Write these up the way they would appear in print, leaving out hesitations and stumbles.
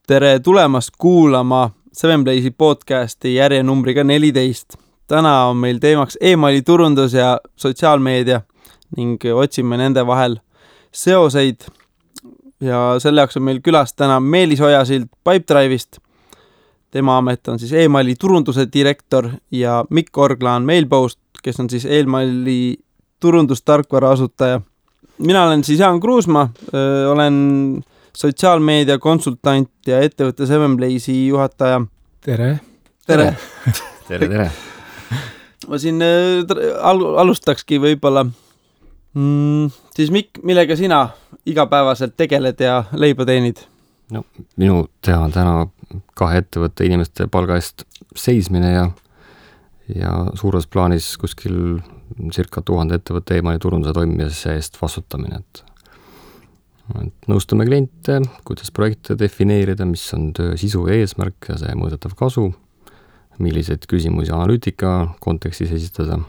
Tere tulemast kuulama Sevenplace'i podcasti järjenumbriga 14. Täna on meil teemaks e-maili turundus ja sotsiaalmeedia ning otsime nende vahel seoseid. Ja selle jaoks on meil külas täna Meelis Ojasild Pipedrive'ist. Tema amet on siis e-maili turunduse direktor ja Mikk Orgla on Mailpost, kes on siis e-maili turundustarkvara asutaja. Mina olen siis Jaan Kruusma, olen sotsiaalmeedia konsultant ja ettevõtte Sevenplace'i juhataja. Tere! Tere! Tere! Ma siin alustakski võib-olla. Siis Mikk, millega sina igapäevaselt tegeled ja leiba teenid? No, minu teha on täna 2 ettevõtte inimeste palga eest seismine ja suures plaanis kuskil circa 1000 ettevõtte e-maili turunduse toimimise eest vastutamine. Et nõustame kliente, kuidas projekte defineerida, mis on töö sisu ja eesmärk ja see mõõdetav kasu, milliseid küsimusi analüütika kontekstis esitada,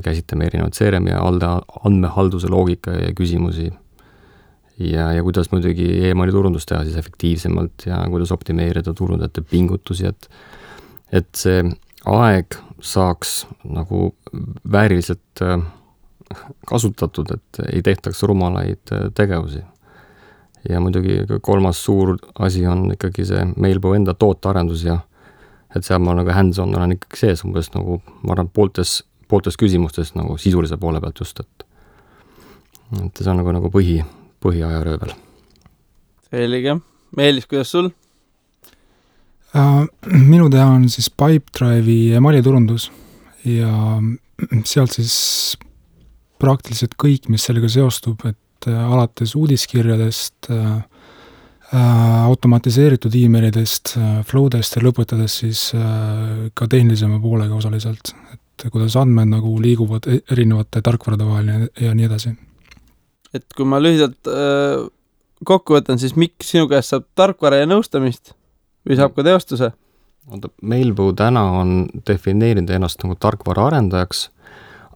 käsitleme erinevad CRM ja andmehalduse loogika ja küsimusi ja kuidas muidugi e-maili turundus teha siis efektiivsemalt ja kuidas optimeerida turundajate pingutusi, et see aeg saaks nagu vääriliselt kasutatud, et ei tehtaks rumalaid tegevusi. Ja muidugi 3. suur asi on ikkagi see Mailbo enda tootearendus ja et seal ma nagu hands-on olen ikkagi sees umbes nagu, ma arvan, pooltes küsimustes nagu sisulise poole pealt just, et see on nagu põhiaja röövel. Selge. Meelis, kuidas sul? Minu teha on siis Pipedrive'i e-maili turundus ja sealt siis praktiliselt kõik, mis sellega seostub, et alates uudiskirjadest, automatiseeritud e-mailidest, flowdest ja lõpetades siis ka tehnilisema poolega osaliselt, et kuidas andmed nagu liiguvad erinevate tarkvarade vahel ja nii edasi. Et kui ma lühidalt kokku võtan, siis Mikk, sinu käest saab tarkvara ja nõustamist või saab ka teostuse? Mailbo täna on defineerinud ennast nagu tarkvara arendajaks,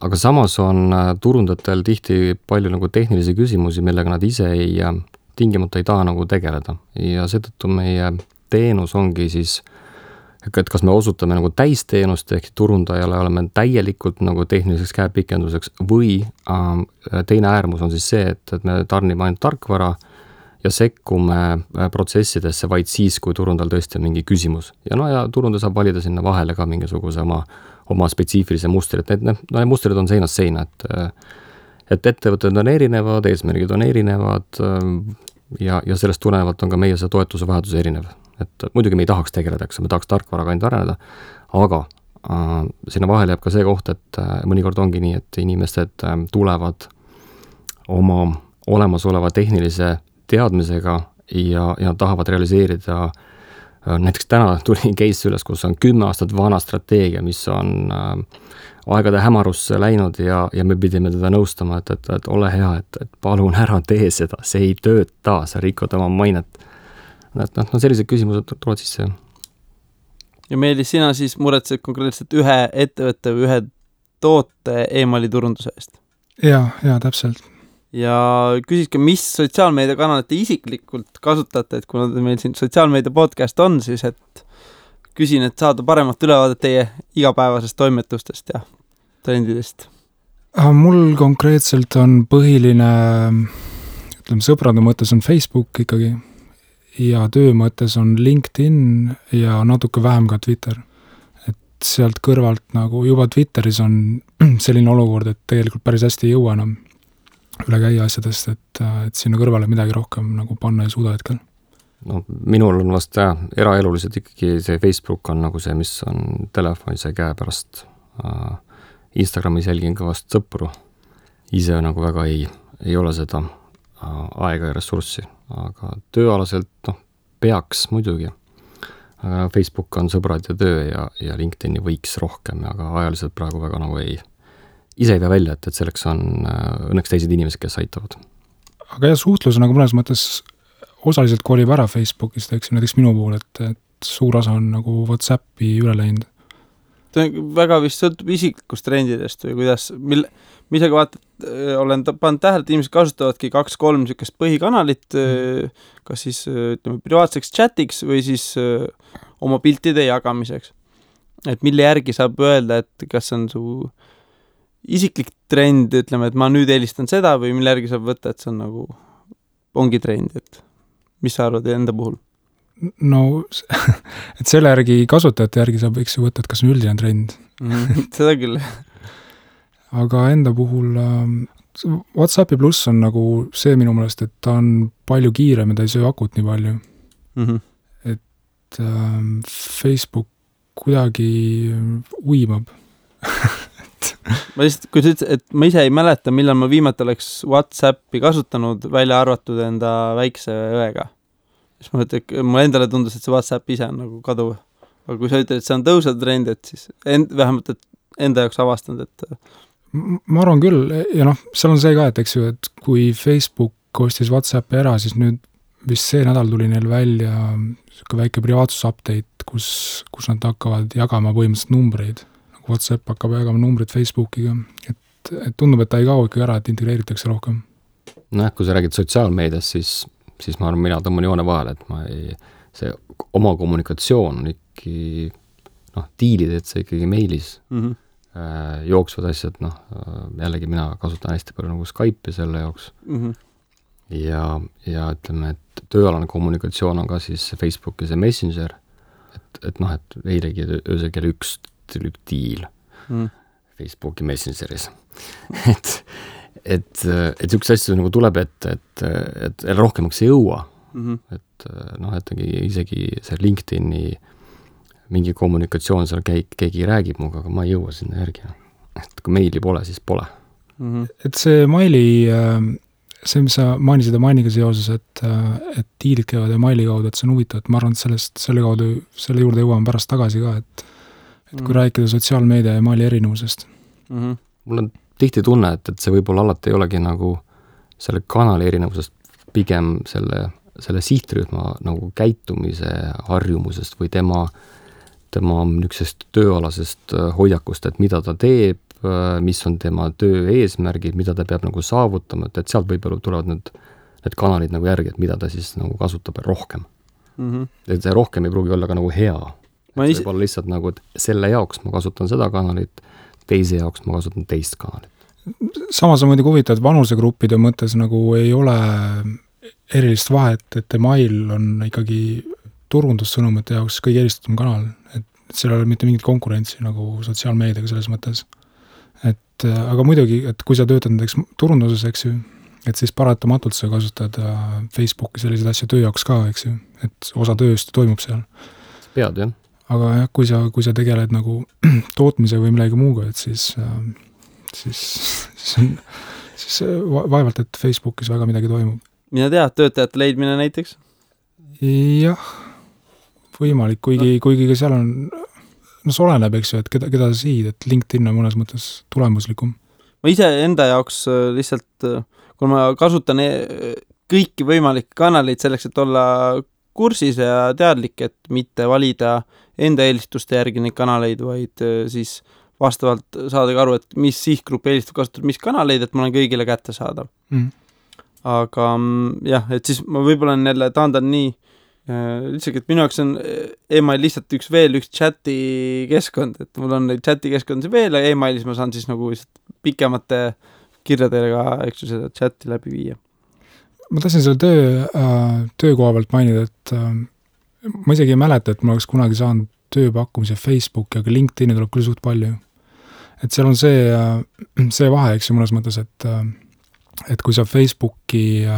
aga samas on turundatel tihti palju nagu tehnilisi küsimusi, millega nad ise tingimata ei taha nagu tegeleda. Ja seetõttu meie teenus ongi siis, et kas me osutame nagu täisteenust ehk turundajale oleme täielikult nagu tehniliseks käepikenduseks või teine äärmus on siis see, et me tarnime ainult tarkvara ja sekkume protsessidesse vaid siis, kui turundajal tõesti on mingi küsimus. Ja turundaja saab valida sinna vahele ka mingisuguse oma spetsiifilise mustri, et need mustrid on seinast seina, et ettevõtted on erinevad, eesmärgid on erinevad ja sellest tulenevalt on ka meie see toetuse vajadus erinev. Et muidugi me ei tahaks tegeleda, me tahaks tarkvaraga ainult areneda, aga sinna vahele jääb ka see koht, et mõnikord ongi nii, et inimesed tulevad oma olemasoleva tehnilise teadmisega ja tahavad realiseerida. Näiteks täna tuli case üles, kus on 10 aastat vana strateegia, mis on aegade hämarusse läinud ja me pidime teda nõustama, et ole hea, et palun ära tee seda, see ei tööta, sa rikod oma mainet. Sellised küsimused tulevad sisse. Ja Meelis, sina siis muretsed konkreetselt ühe ettevõtte või ühe toote e-maili turunduse eest? Ja, täpselt. Ja küsiske, mis sotsiaalmeediakanalit te isiklikult kasutate, et kuna meil siin sotsiaalmeedia podcast on, siis et küsin, et saada paremat ülevaadet teie igapäevasest toimetustest ja trendidest. Mul konkreetselt on põhiline, sõprade mõttes on Facebook ikkagi ja töö mõttes on LinkedIn ja natuke vähem ka Twitter. Et sealt kõrvalt nagu juba Twitteris on selline olukord, et tegelikult päris hästi ei jõua enam üle käia asjadest, et sinna kõrvale midagi rohkem nagu panna ei suuda hetkel. No, minul on vast eraeluliselt ikkagi see Facebook on nagu see, mis on telefonis ja käe pärast. Instagramis jälgin ka vast sõpru. Ise nagu väga ei ole seda aega ja ressurssi, aga tööalaselt peaks muidugi. Aga Facebook on sõbrad ja töö ja LinkedIni võiks rohkem, aga ajaliselt praegu väga nagu ise ei pea välja, et selleks on õnneks teised inimesed, kes aitavad. Aga suhtlus nagu mõnes mõttes osaliselt kolib ära Facebookist, näiteks minu puhul, et suur osa on nagu WhatsAppi üle läinud. väga vist sõltub isiklikust trendidest või kuidas, mis aga vaatad, olen pannud tähele, et inimesed kasutavadki 2-3 niisugust põhikanalit, kas siis ütleme privaatseks chatiks või siis oma piltide jagamiseks. Et mille järgi saab öelda, et kas on su isiklik trend, ütleme, et ma nüüd eelistan seda või mille järgi saab võtta, et see on nagu ongi trend, et mis sa arvad enda puhul? No, et selle järgi kasutajate järgi saab võiks ju võtta, et kas on üldine trend. Seda küll. Aga enda puhul WhatsAppi pluss on nagu see minu meelest, et ta on palju kiirem ja ta ei söö akut nii palju. Et Facebook kuidagi uimab. Ma lihtsalt, kui sa ütlesid, et ma ise ei mäleta, millal ma viimati oleks WhatsAppi kasutanud, välja arvatud enda väikse õega. Siis ma mõtlen, et mulle endale tundus, et see WhatsApp ise on nagu kaduv. Aga kui sa ütled, et see on tõusev trend, et siis vähemalt et enda jaoks avastanud, et... Ma arvan küll, ja seal on see ka, et eks ju, et kui Facebook ostis WhatsAppi ära, siis nüüd vist see nädal tuli neil välja väike privaatsus-update, kus nad hakkavad jagama põhimõtteliselt numbreid. WhatsApp hakkab jagama numbrid Facebookiga, et tundub, et ta ei kao ikka ära, et integreeritakse rohkem. Kui sa räägid sotsiaalmeedias, siis ma arvan, mina tõmban joone vahel, et see oma kommunikatsioon on ikkagi, diilid, et see ikkagi meilis jooksvad asjad, jällegi mina kasutan hästi palju nagu Skype'i selle jaoks ja ütleme, et tööalane kommunikatsioon on ka siis Facebooki see Messenger, et eilegi öösel kell 1 diil Facebooki Messengeris. et üks asju nagu tuleb, et rohkemaks ei jõua. Et isegi see LinkedIni mingi kommunikatsioon seal keegi räägib muga, aga ma ei jõua sinna järgi. Et kui meili pole, siis pole. Et see maili, see, mis sa mainisid mainiga seoses, et diilid käivad ja maili kaudu, et see on huvitav, et ma arvan, et selle juurde jõuame pärast tagasi ka, et kui rääkida sotsiaalmeedia ja maali erinevusest. Mul on tihti tunne, et see võib-olla alati ei olegi nagu selle kanali erinevusest, pigem selle sihtrühma nagu käitumise harjumusest või tema niisugusest tööalasest hoiakust, et mida ta teeb, mis on tema töö eesmärgid, mida ta peab nagu saavutama, et sealt võib-olla tulevad need kanalid nagu järgi, et mida ta siis nagu kasutab rohkem. Et see rohkem ei pruugi olla ka nagu hea. See võib olla lihtsalt nagu, et selle jaoks ma kasutan seda kanalit, teise jaoks ma kasutan teist kanalit. Samas on muidugi huvitav, et vanusegruppide mõttes nagu ei ole erilist vahet, et mail on ikkagi turundussõnumite jaoks kõige eelistatum kanal, et seal ei ole mitte mingit konkurentsi nagu sotsiaalmeediaga selles mõttes. Aga muidugi, et kui sa töötad näiteks turunduses, eks ju, et siis paratamatult sa kasutad Facebooki selliseid asju töö jaoks ka, eks ju, et osa tööst toimub seal. Pead, jah. Aga jah, kui sa tegeled nagu tootmise või millegi muuga, et siis vaevalt, et Facebookis väga midagi toimub. Mina tead, töötajate leidmine näiteks? Jah, võimalik, kuigi ka seal on, see oleneb, eks ju, et keda sa siid, et LinkedIn on mõnes mõttes tulemuslikum. Ma ise enda jaoks lihtsalt, kui ma kasutan kõiki võimalikke kanaleid selleks, et olla kursis ja teadlik, et mitte valida enda eelistuste järgi neid kanaleid, vaid siis vastavalt saada aru, et mis sihtgrupp eelistab kasutada mis kanaleid, et ma olen kõigile kätte saada. Aga jah, et siis ma võib-olla jälle taandan nii lihtsalt, et minu jaoks on email lihtsalt üks chati keskkond, et mul on neid chati keskkondi veel ja emailis ma saan siis nagu pikemate kirjadega, eks ju, seda chati läbi viia. Ma tahtsin selle töökoha pealt mainida, et ma isegi ei mäleta, et ma oleks kunagi saanud tööpakkumise Facebooki, aga LinkedIni tuleb küll suht palju. Et seal on see vahe, eks ju, mõnes mõttes, et kui sa Facebookis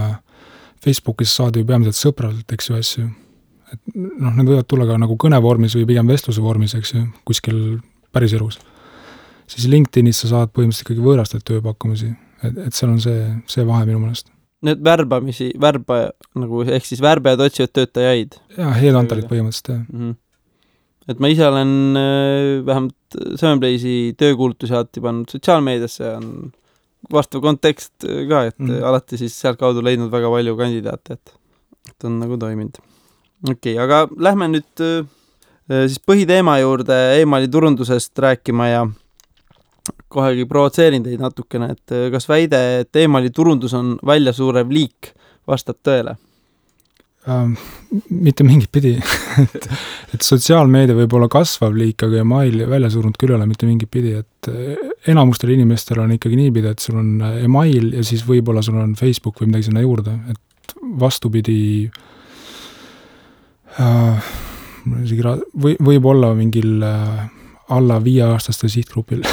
saad ju peamiselt sõpralt, eks ju, asju, et need võivad tulla ka nagu kõnevormis või pigem vestluse vormis, eks ju, kuskil päris elus. Siis LinkedInis sa saad põhimõtteliselt ikkagi võõrastad tööpakkumisi, et seal on see vahe minu mõnest. Need nagu, ehk siis värbajad otsivad töötajaid. Jah, headhunterid põhimõtteliselt, jah. Et ma ise olen vähemalt Sevenplace'i töökuulutusi alati pannud sotsiaalmeediasse, on vastav kontekst ka, et alati siis sealt kaudu leidnud väga palju kandidaate, et on nagu toiminud. Okei, aga lähme nüüd siis põhiteema juurde emaili turundusest rääkima ja kohegi provotseerin teid natukene, et kas väide, et emaili turundus on väljasuurev liik, vastab tõele? Mitte mingit pidi. et sotsiaalmeedia võib olla kasvav liik, aga email välja surunud küll ole mitte mingit pidi, et enamustel inimestel on ikkagi niipidi, et sul on email ja siis võib-olla sul on Facebook või midagi sinna juurde, et vastupidi võib olla mingil alla 5-aastaste sihtgrupil.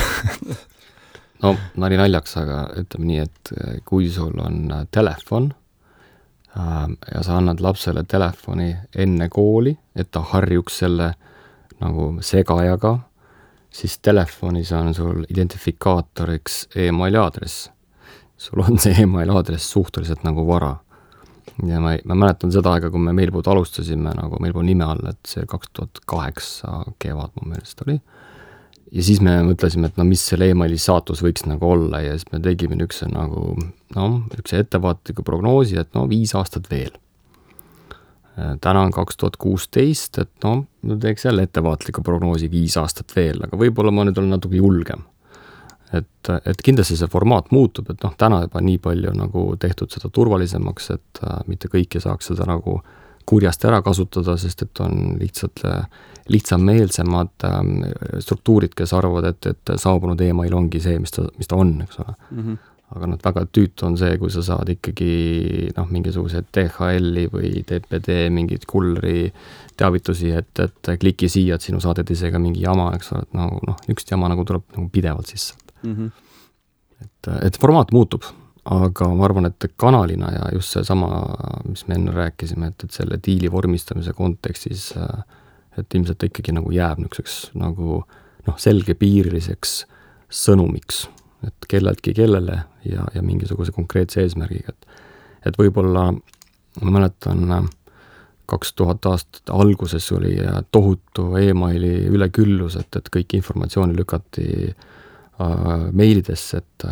No, nali naljaks, aga ütleme nii, et kui sul on telefon, ja sa annad lapsele telefoni enne kooli, et ta harjuks selle nagu segajaga, siis telefonis on sul identifikaatoriks emaili aadress. Sul on see emaili aadress suhteliselt nagu vara. Ja ma mäletan seda aega, kui me Mailboot alustasime nagu Mailboot nime all, et see 2008 kevad mu meelest oli. Ja siis me mõtlesime, et mis selle emaili saatus võiks nagu olla ja siis me tegime üks ettevaatliku prognoosi, et 5 aastat veel. Täna on 2016, et me teeks jälle ettevaatliku prognoosi 5 aastat veel, aga võib-olla ma nüüd olen natuke julgem. Et kindlasti see formaat muutub, et täna juba nii palju nagu tehtud seda turvalisemaks, et mitte kõik ei saaks seda nagu kurjast ära kasutada, sest et on lihtsameelsemad struktuurid, kes arvavad, et saabunud email ongi see, mis ta on, eks ole. Mm-hmm. Aga väga tüütu on see, kui sa saad ikkagi mingisugused DHL-i või TPD mingid kulleri teavitusi, et kliki siia, et sinu saaded isegi mingi jama, eks ole, et üks jama nagu tuleb nagu pidevalt sisse. Mm-hmm. Et formaat muutub, aga ma arvan, et kanalina ja just see sama, mis me enne rääkisime, et selle diili vormistamise kontekstis, et ilmselt ikkagi nagu jääb niisuguseks nagu selgepiiriliseks sõnumiks, et kelleltki kellele ja mingisuguse konkreetse eesmärgiga. Et võib-olla, ma mäletan, 2000 aastat alguses oli tohutu emaili üleküllus, et kõik informatsiooni lükati meilidesse, et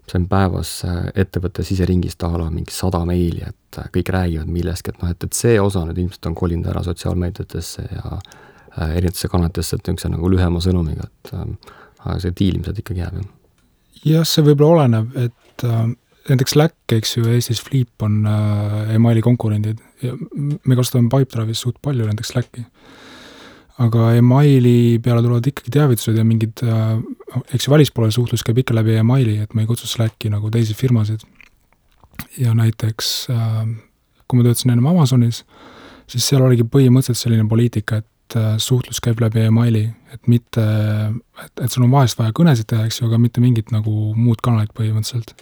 sain päevas ettevõtte siseringist mingi 100 meili, et kõik räägivad millestki, et see osa nüüd ilmselt on kolinud ära sotsiaalmeediatesse ja erinevatesse kanalitesse, et niisuguse nagu lühema sõnumiga, et see diil ilmselt ikkagi jääb. Jah, see võib-olla oleneb, et näiteks Slack, eks ju, Eestis Flip on emaili konkurendid ja me kasutame Pipedrive'is suht palju näiteks Slacki. Aga emaili peale tulevad ikkagi teavitused ja mingid, eks ju välispoole suhtlus käib ikka läbi emaili, et ma ei kutsu Slacki nagu teisi firmasid. Ja näiteks, kui ma töötasin ennem Amazonis, siis seal oligi põhimõtteliselt selline poliitika, et suhtlus käib läbi emaili, et mitte, et sul on vahest vaja kõnesid teha, eks ju, aga mitte mingit nagu muud kanalit põhimõtteliselt.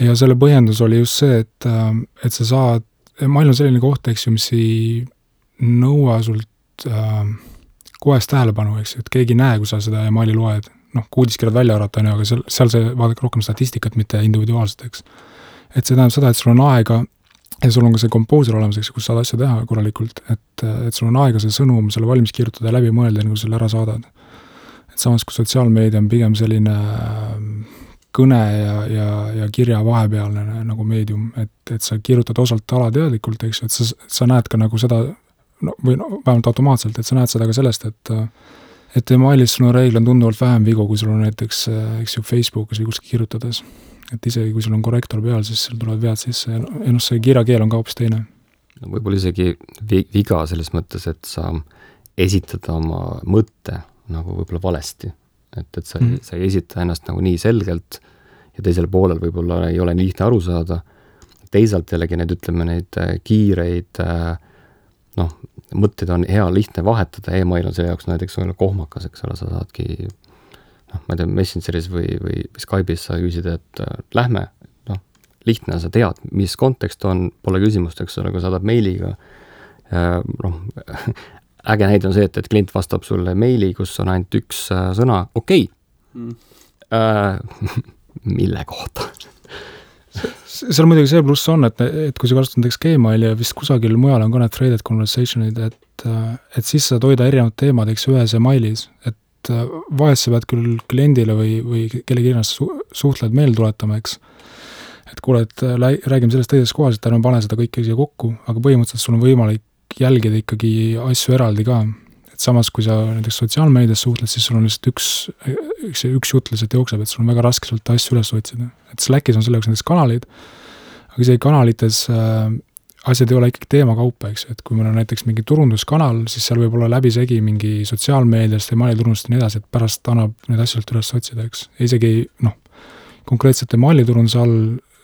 Ja selle põhjendus oli just see, et sa saad, email on selline koht, eks ju, mis ei nõua sult kohest tähelepanu, eks, et keegi näe, kui sa seda emaili loed, uudiskirjad välja arvata, aga seal see vaadake rohkem statistikat, mitte individuaalselt, eks. Et see tähendab seda, et sul on aega ja sul on ka see komposer olemas, eks, kus saad asja teha korralikult, et sul on aega see sõnum, selle valmis kirjutada ja läbi mõelda, kui selle ära saadad. Et samas, kui sotsiaalmeedia on pigem selline kõne ja kirja vahepealne nagu meedium, et sa kirjutad osalt alateadlikult, eks, et sa näed ka nagu seda vähemalt automaatselt, et sa näed seda ka sellest, et emailis sul on reegel tunduvalt vähem vigu, kui sul on näiteks, eks ju, Facebookis või kuskil kirjutades. Et isegi kui sul on korrektor peal, siis sul tulevad vead sisse ja see kirjakeel on ka hoopis teine. Võib-olla isegi viga selles mõttes, et sa esitad oma mõtte nagu võib-olla valesti. Et sa ei esita ennast nagu nii selgelt ja teisel poolel võib-olla ei ole nii lihtne aru saada. Teisalt jällegi neid kiireid mõtteid on hea lihtne vahetada, email on selle jaoks näiteks kohmakas, eks ole, sa saadki ma ei tea, Messengeris või Skype'is sa küsid, et lähme, lihtne, sa tead, mis kontekst on, pole küsimust, eks ole, kui saadab meiliga. Äge näide on see, et klient vastab sulle meili, kus on ainult üks sõna, okei. Mille kohta? Seal muidugi see pluss on, et kui sa kasutad näiteks Gmaili ja vist kusagil mujal on ka need threaded conversationid, et siis saad hoida erinevad teemad, eks ühes emailis, et vahest sa pead küll kliendile või kellegi ennast suhtled meel tuletama, eks. Et kuule, et räägime sellest teises kohas, et ärme pane seda kõike siia kokku, aga põhimõtteliselt sul on võimalik jälgida ikkagi asju eraldi ka. Et et samas, kui sa näiteks sotsiaalmeedias suhtled, siis sul on lihtsalt üks jutt lihtsalt jookseb, et sul on väga raske sealt asju üles otsida. Et Slackis on selle jaoks näiteks kanalid, aga isegi kanalites asjad ei ole ikkagi teemakaupa, eks, et kui meil on näiteks mingi turunduskanal, siis seal võib olla läbisegi mingi sotsiaalmeediast, emailiturundust ja nii edasi, et pärast annab need asjalt üles otsida, eks. Ja isegi, konkreetselt emailiturunduse all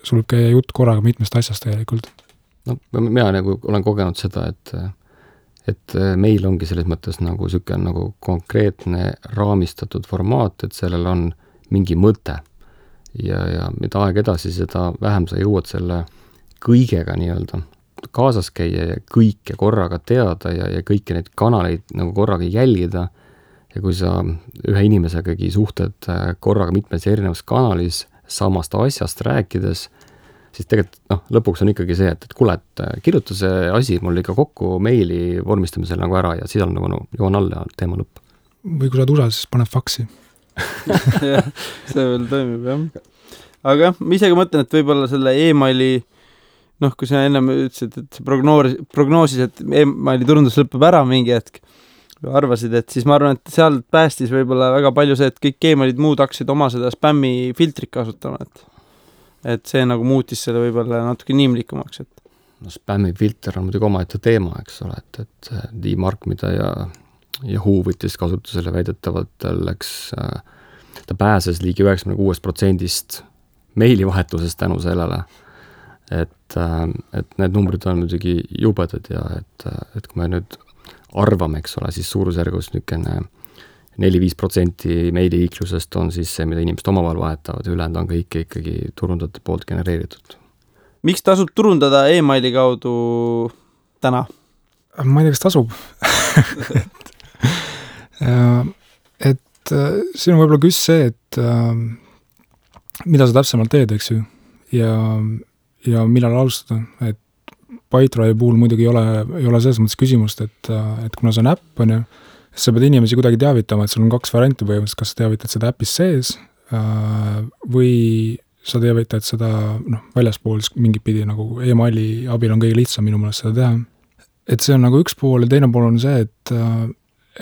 sul võib käia jutt korraga mitmest asjast tegelikult. No, mina nagu olen kogenud seda, et meil ongi selles mõttes nagu selline nagu konkreetne raamistatud formaat, et sellel on mingi mõte. Ja mida aeg edasi, seda vähem sa jõuad selle kõigega nii-öelda kaasas käia ja kõike korraga teada ja kõiki neid kanaleid nagu korraga jälgida. Ja kui sa ühe inimesegagi suhted korraga mitmes erinevas kanalis samast asjast rääkides, siis tegelikult lõpuks on ikkagi see, et kuule, et kirjuta see asi mul ikka kokku meili vormistamisel nagu ära ja siis on nagu joon alla ja teema lõpp. Või kui sa oled USA, siis paneb faksi. Jah, see veel toimib, jah. Aga ma isegi mõtlen, et võib-olla selle e-maili, kui sa ennem ütlesid, et prognoosis, et e-maili turundus lõpeb ära mingi hetk, arvasid, et siis ma arvan, et sealt päästis võib-olla väga palju see, et kõik e-mailid muud hakkasid oma seda spämmi filtrit kasutama, et see nagu muutis selle võib-olla natuke inimlikumaks, et spämmi filter on muidugi omaette teema, eks ole, et D-Mark, mida ja Yahoo võttis kasutusele väidetavalt läks, ta pääses ligi 96% meilivahetusest tänu sellele, et need numbrid on muidugi jubedad ja et kui me nüüd arvame, eks ole, siis suurusjärgus niisugune 4-5% meiliiklusest on siis see, mida inimesed omavahel vahetavad ja ülejäänud on kõik ikkagi turundajate poolt genereeritud. Miks tasub turundada e-maili kaudu täna? Ma ei tea, kas tasub. et siin on võib-olla küs see, et mida sa täpsemalt teed, eks ju, ja millal alustada, et PyDrive puhul muidugi ei ole selles mõttes küsimust, et kuna see on äpp, on ju, siis sa pead inimesi kuidagi teavitama, et sul on 2 varianti põhimõtteliselt, kas sa teavitad seda äppis sees või sa teavitad seda väljaspool mingit pidi, nagu e-maili abil on kõige lihtsam minu meelest seda teha. Et see on nagu üks pool ja teine pool on see, et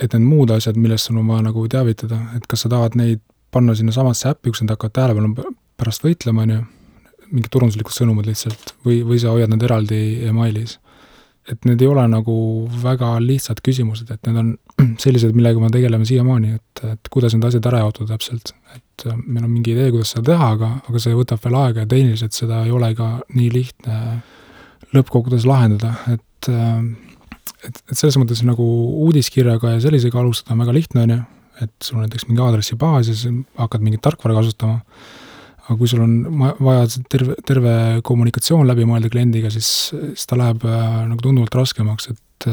need muud asjad, millest sul on vaja nagu teavitada, et kas sa tahad neid panna sinna samasse äppi, kus nad hakkavad tähelepanu pärast võitlema, on ju, mingid turunduslikud sõnumid lihtsalt, või sa hoiad nad eraldi e-mailis. Et need ei ole nagu väga lihtsad küsimused, et need on sellised, millega me tegeleme siiamaani, et kuidas need asjad ära jaotada täpselt. Et meil on mingi idee, kuidas seda teha, aga see võtab veel aega ja tehniliselt seda ei ole ka nii lihtne lõppkogudes lahendada, et selles mõttes nagu uudiskirjaga ja sellisega alustada on väga lihtne, on ju, et sul on näiteks mingi aadressibaas ja siis hakkad mingit tarkvara kasutama, aga kui sul on vaja terve kommunikatsioon läbi mõelda kliendiga, siis ta läheb nagu tunduvalt raskemaks, et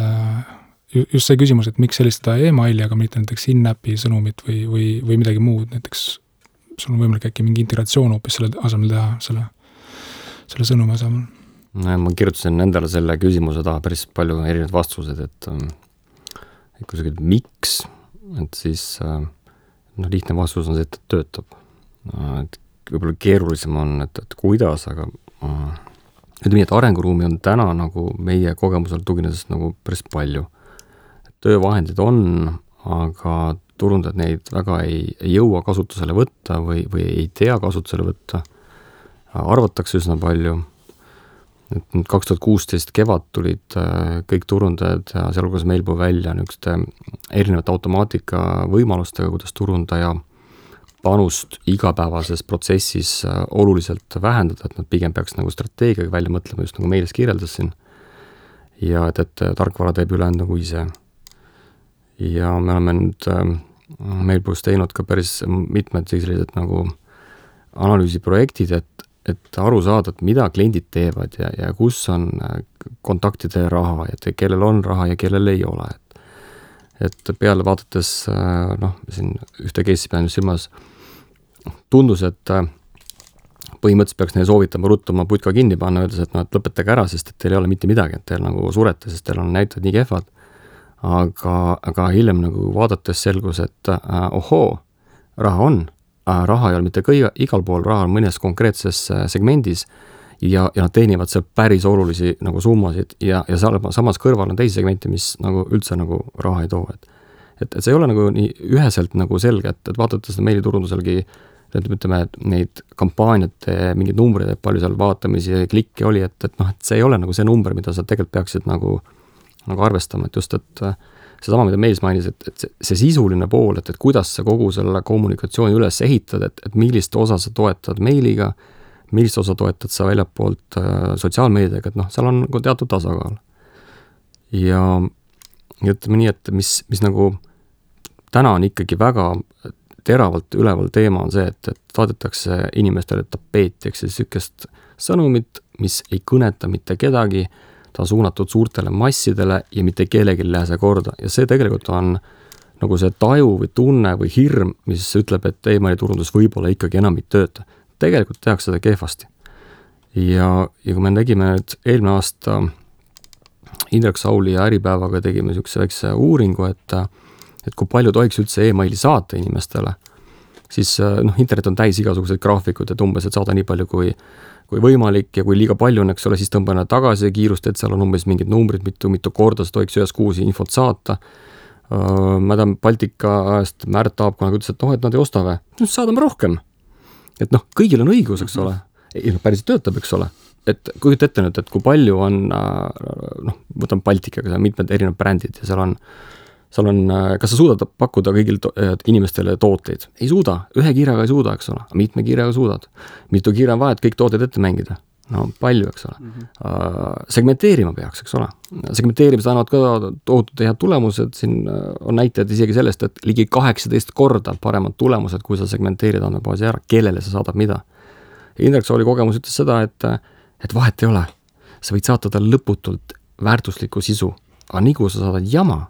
just see küsimus, et miks sellistada e-maili, aga mitte näiteks in-appi sõnumit või midagi muud, näiteks sul on võimalik äkki mingi integratsioon hoopis selle asemel teha, selle sõnumi asemel. Ma kirjutasin endale selle küsimuse taha päris palju erinevad vastused, et kui sa küsid miks, et siis lihtne vastus on see, et töötab. Et võib-olla keerulisem on, et kuidas, aga ütleme nii, et arenguruumi on täna nagu meie kogemusel tuginedes nagu päris palju. Töövahendid on, aga turundajad neid väga ei jõua kasutusele võtta või ei tea kasutusele võtta. Arvatakse üsna palju. 2016 kevad tulid kõik turundajad ja sealhulgas Mailbow välja niisuguste erinevate automaatika võimalustega, kuidas turundaja panust igapäevases protsessis oluliselt vähendada, et nad pigem peaks nagu strateegiaga välja mõtlema, just nagu meilis kirjeldasin. Ja et tarkvara teeb ülejäänud nagu ise. Ja me oleme nüüd Mailbow's teinud ka päris mitmed sellised nagu analüüsiprojektid, et aru saada, et mida kliendid teevad ja kus on kontaktide raha, et kellel on raha ja kellel ei ole. Et peale vaadates, siin ühte case'i pean silmas, tundus, et põhimõtteliselt peaks neile soovitama ruttuma putka kinni panna, öeldes, et lõpetage ära, sest et teil ei ole mitte midagi, et teil nagu surete, sest teil on näitajad nii kehvad. Aga hiljem nagu vaadates selgus, et ohoo, raha on. Raha ei ole mitte igal pool, raha on mõnes konkreetses segmendis ja nad teenivad seal päris olulisi nagu summasid ja samas kõrval on teisi segmente, mis nagu üldse nagu raha ei too. et see ei ole nagu nii üheselt nagu selge, et vaadata seda meiliturunduselgi, ütleme, et neid kampaaniate mingeid numbreid, et palju seal vaatamisi ja klikke oli, et see ei ole nagu see number, mida sa tegelikult peaksid nagu arvestama, et just, et seesama, mida Meelis mainis, et see sisuline pool, et kuidas sa kogu selle kommunikatsiooni üles ehitad, et millist osa sa toetad meiliga, millist osa toetad sa väljapoolt sotsiaalmeediaga, et seal on nagu teatud tasakaal. Ja ütleme nii, et mis nagu täna on ikkagi väga teravalt üleval teema on see, et saadetakse inimestele tapeeti, eks sükest sõnumit, mis ei kõneta mitte kedagi, ta on suunatud suurtele massidele ja mitte kellelgi ei lähe see korda. Ja see tegelikult on nagu see taju või tunne või hirm, mis ütleb, et e-mailiturundus võib-olla ikkagi enam ei tööta. Tegelikult tehakse seda kehvasti. Ja kui me tegime nüüd eelmine aasta Indrek Sauli ja Äripäevaga tegime niisuguse väikse uuringu, et kui palju tohiks üldse e-maili saata inimestele, siis internet on täis igasuguseid graafikud, et umbes, et saada nii palju kui võimalik ja kui liiga palju on, eks ole, siis tõmbane tagasi kiirust, et seal on umbes mingid numbrid, mitu korda sa tohiks ühes kuusi infot saata. Ma tean Baltika ajast Märt Taab kunagi ütles, et nad ei osta või? Saadame rohkem. Et kõigil on õigus, eks ole. Päris töötab, eks ole. Et kujuta ette nüüd, et kui palju on, võtame Baltikaga, seal on mitmed erinevad brändid ja seal on, kas sa suudad pakkuda kõigil inimestele tooteid? Ei suuda, ühe kiirega ei suuda, eks ole, mitme kiirega suudad. Mitu kiire on vaja, et kõik tooted ette mängida? No palju, eks ole. Segmenteerima peaks, eks ole. Segmenteerimised annavad ka tohutult head tulemused, siin on näitajad isegi sellest, et ligi 18 korda paremad tulemused, kui sa segmenteerid andmebaasi ära, kellele sa saadad mida. Indrek Sauli kogemus ütles seda, et vahet ei ole. Sa võid saata tal lõputult väärtuslikku sisu, aga nii kui sa saadad jama,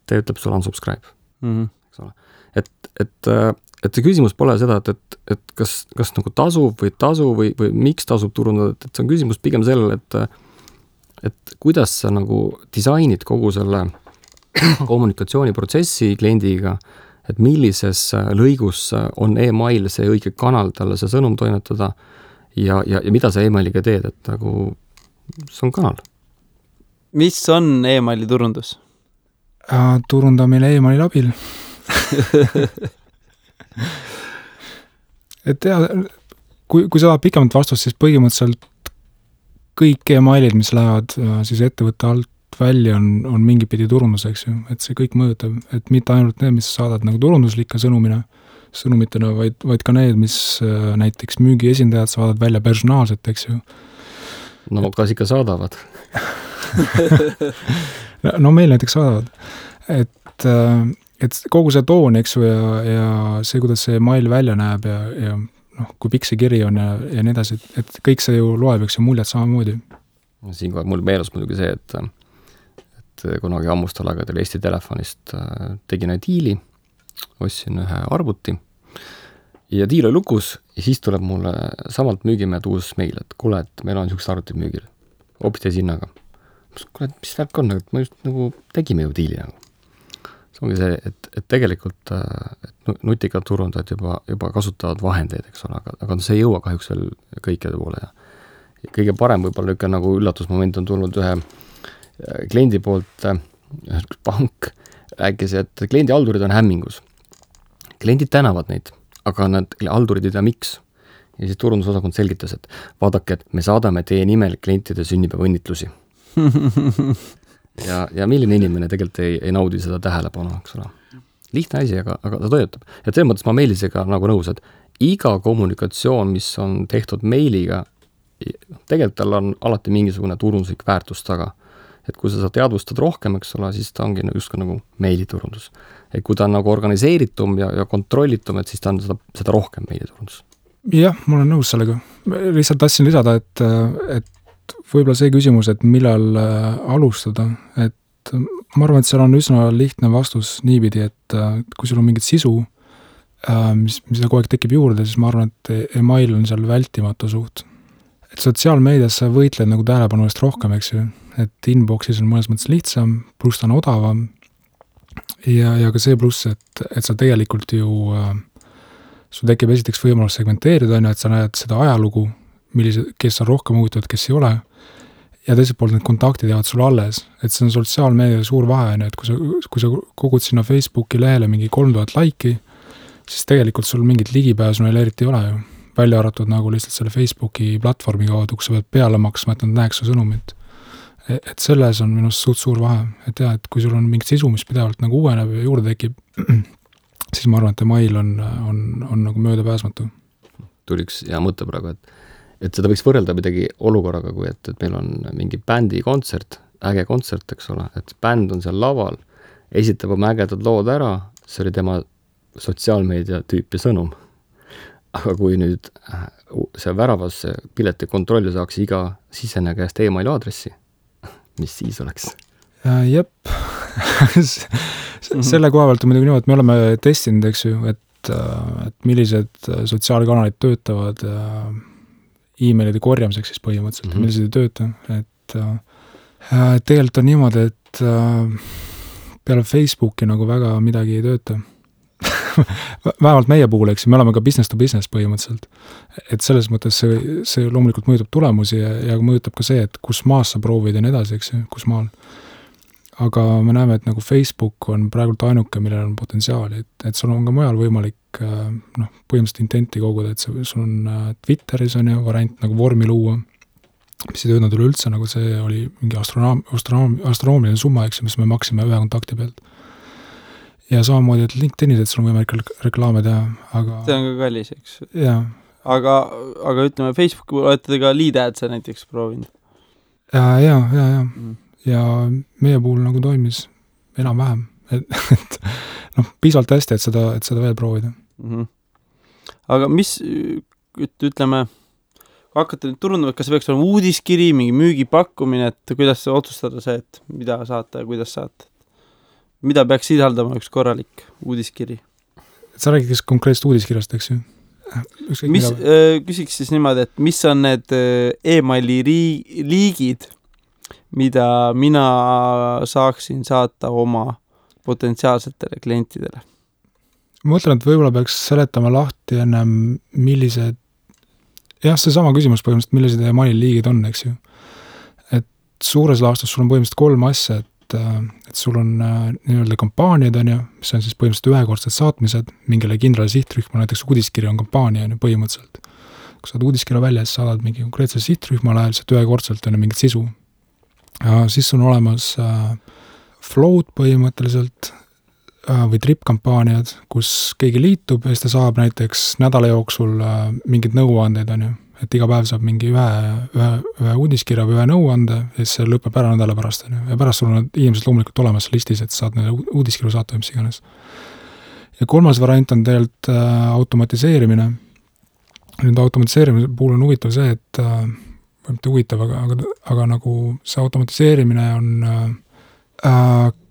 ta ütleb sulle unsubscribe. Eks ole. Et see küsimus pole seda, et kas nagu tasub või miks tasub turundada, et see on küsimus pigem sellele, et kuidas sa nagu disainid kogu selle kommunikatsiooniprotsessi kliendiga, et millises lõigus on e-mail see õige kanal talle see sõnum toimetada ja mida sa e-mailiga teed, et nagu see on kanal. Mis on e-maili turundus? Turundamine e-maili abil. Et kui sa tahad pikemat vastust, siis põhimõtteliselt kõik e-mailid, mis lähevad siis ettevõtte alt välja, on mingi pidi turunduseks ju, et see kõik mõjutab, et mitte ainult need, mis saadad nagu turunduslike sõnumitena, vaid ka need, mis näiteks müügiesindajad saadavad välja personaalselt, eks ju. No kas ikka saadavad? No meil näiteks saadavad, et kogu see toon, eks ju, ja see, kuidas see mail välja näeb ja kui pikk see kiri on ja nii edasi, et kõik see ju loeb, eks ju, muljed samamoodi. Siinkohal mul meeles muidugi see, et kunagi ammustal aegadel Eesti Telefonist tegin diili, ostsin ühe arvuti ja diil oli lukus ja siis tuleb mulle samalt müügimehed uus meil, et kuule, et meil on niisugused arvutid müügil, hoopis teise hinnaga. Kuule, mis värk on, et ma just nagu tegime ju diili nagu. See ongi see, et tegelikult nutikad turundajad juba kasutavad vahendeid, eks ole, aga see ei jõua kahjuks veel kõikide poole. Ja kõige parem võib-olla ikka nagu üllatusmoment on tulnud ühe kliendi poolt, pank rääkis, et kliendi haldurid on hämmingus. Kliendid tänavad neid, aga nad haldurid ei tea miks. Ja siis turundusosakond selgitas, et vaadake, et me saadame teie nimel klientide sünnipäeva õnnitlusi. Ja milline inimene tegelikult ei naudi seda tähelepanu, eks ole. Lihtne asi, aga ta töötab. Ja selles mõttes ma Meelisega nagu nõus, et iga kommunikatsioon, mis on tehtud meiliga, tegelikult tal on alati mingisugune turunduslik väärtus taga. Et kui sa teadvustad rohkem, eks ole, siis ta ongi just nagu meiliturundus. Et kui ta on nagu organiseeritum ja kontrollitum, et siis ta on seda rohkem meiliturundus. Jah, ma olen nõus sellega. Lihtsalt tahtsin lisada, et võib-olla see küsimus, et millal alustada, et ma arvan, et seal on üsna lihtne vastus niipidi, et kui sul on mingit sisu, mis kogu aeg tekib juurde, siis ma arvan, et e-mail on seal vältimatu suht. Et sotsiaalmeedias sa võitled nagu tähelepanu eest rohkem, eks ju, et inboxis on mõnes mõttes lihtsam, pluss ta on odavam ja ka see pluss, et sa tegelikult ju sul tekib esiteks võimalus segmenteerida, et sa näed seda ajalugu, kes on rohkem huvitavad, kes ei ole ja teiselt poolt need kontaktid jäävad sulle alles, et see on sotsiaalmeedia suur vahe, et kui sa kogud sinna Facebooki lehele mingi 3000 laiki, siis tegelikult sul mingit ligipääsu neil eriti ei ole ju. Välja arvatud nagu lihtsalt selle Facebooki platvormi kaudu, kus sa pead peale maksma, et nad näeks su sõnumit. Et selles on minust suur vahe, et jah, et kui sul on mingit sisu, mis pidevalt nagu uueneb ja juurde tekib, siis ma arvan, et email on nagu möödapääsmatu. Tuli üks hea mõte praegu, et seda võiks võrrelda midagi olukorraga, kui et meil on mingi bändi kontsert, äge kontsert, eks ole, et bänd on seal laval, esitab oma ägedad lood ära, see oli tema sotsiaalmeedia tüüpi sõnum. Aga kui nüüd see väravasse pileti kontrolli saaks iga siseneja käest emaili aadressi, mis siis oleks? Jep. Selle koha pealt on muidugi niimoodi, et me oleme testinud, eks ju, et millised sotsiaalkanalid töötavad e-mailide korjamiseks siis põhimõtteliselt, millised ei tööta. Et tegelikult on niimoodi, et peale Facebooki nagu väga midagi ei tööta. Vähemalt meie puhul, eks, me oleme ka business to business põhimõtteliselt. Et selles mõttes see loomulikult mõjutab tulemusi ja mõjutab ka see, et kus maas sa proovid ja nii edasi, eks, kus maal. Aga me näeme, et nagu Facebook on praegult ainuke, millel on potentsiaali, et sul on ka mujal võimalik põhimõtteliselt intenti koguda, et sul on Twitteris on ju variant nagu vormi luua, mis ei töötanud üleüldse, nagu see oli mingi astronoomiline summa, eks, mis me maksime ühe kontakti pealt. Ja samamoodi, et LinkedInis, et sul on võimalik reklaame teha, aga... See on ka kallis, eks. Jaa. Aga ütleme, Facebooki olete te ka lead adse näiteks proovinud? Jaa. Ja meie puhul nagu toimis enam-vähem. Et piisavalt hästi, et seda veel proovida. Aga mis, ütleme, kui hakkate nüüd turundama, kas peaks olema uudiskiri, mingi müügipakkumine, et kuidas otsustada see, et mida saate ja kuidas saate? Mida peaks sisaldama üks korralik uudiskiri? Sa räägid konkreetselt uudiskirjast, eks ju? Küsiks siis niimoodi, et mis on need e-maili liigid, mida mina saaksin saata oma potentsiaalsetele klientidele? Ma mõtlen, et võib-olla peaks seletama lahti ennem, millised, jah, see sama küsimus põhimõtteliselt, millised e-maili liigid on, eks ju. Et suures laastus sul on põhimõtteliselt 3 asja, et sul on nii-öelda kampaaniad on ju, mis on siis põhimõtteliselt ühekordsed saatmised mingile kindrale sihtrühma, näiteks uudiskiri on kampaania on ju põhimõtteliselt. Kui saad uudiskirja välja, siis saadad mingi konkreetse sihtrühmale, lihtsalt ühekordselt on ju mingit sisu. Ja siis on olemas float põhimõtteliselt või trip-kampaaniad, kus keegi liitub ja siis ta saab näiteks nädala jooksul mingid nõuandeid on ju, et iga päev saab mingi ühe uudiskirja või ühe nõuande ja siis see lõpeb ära nädala pärast on ju. Ja pärast sul on inimesed loomulikult olemas listis, et saad neile uudiskirju saata või mis iganes. Ja 3. variant on tegelikult automatiseerimine. Nüüd automatiseerimise puhul on huvitav see, et mitte huvitav, aga nagu see automatiseerimine on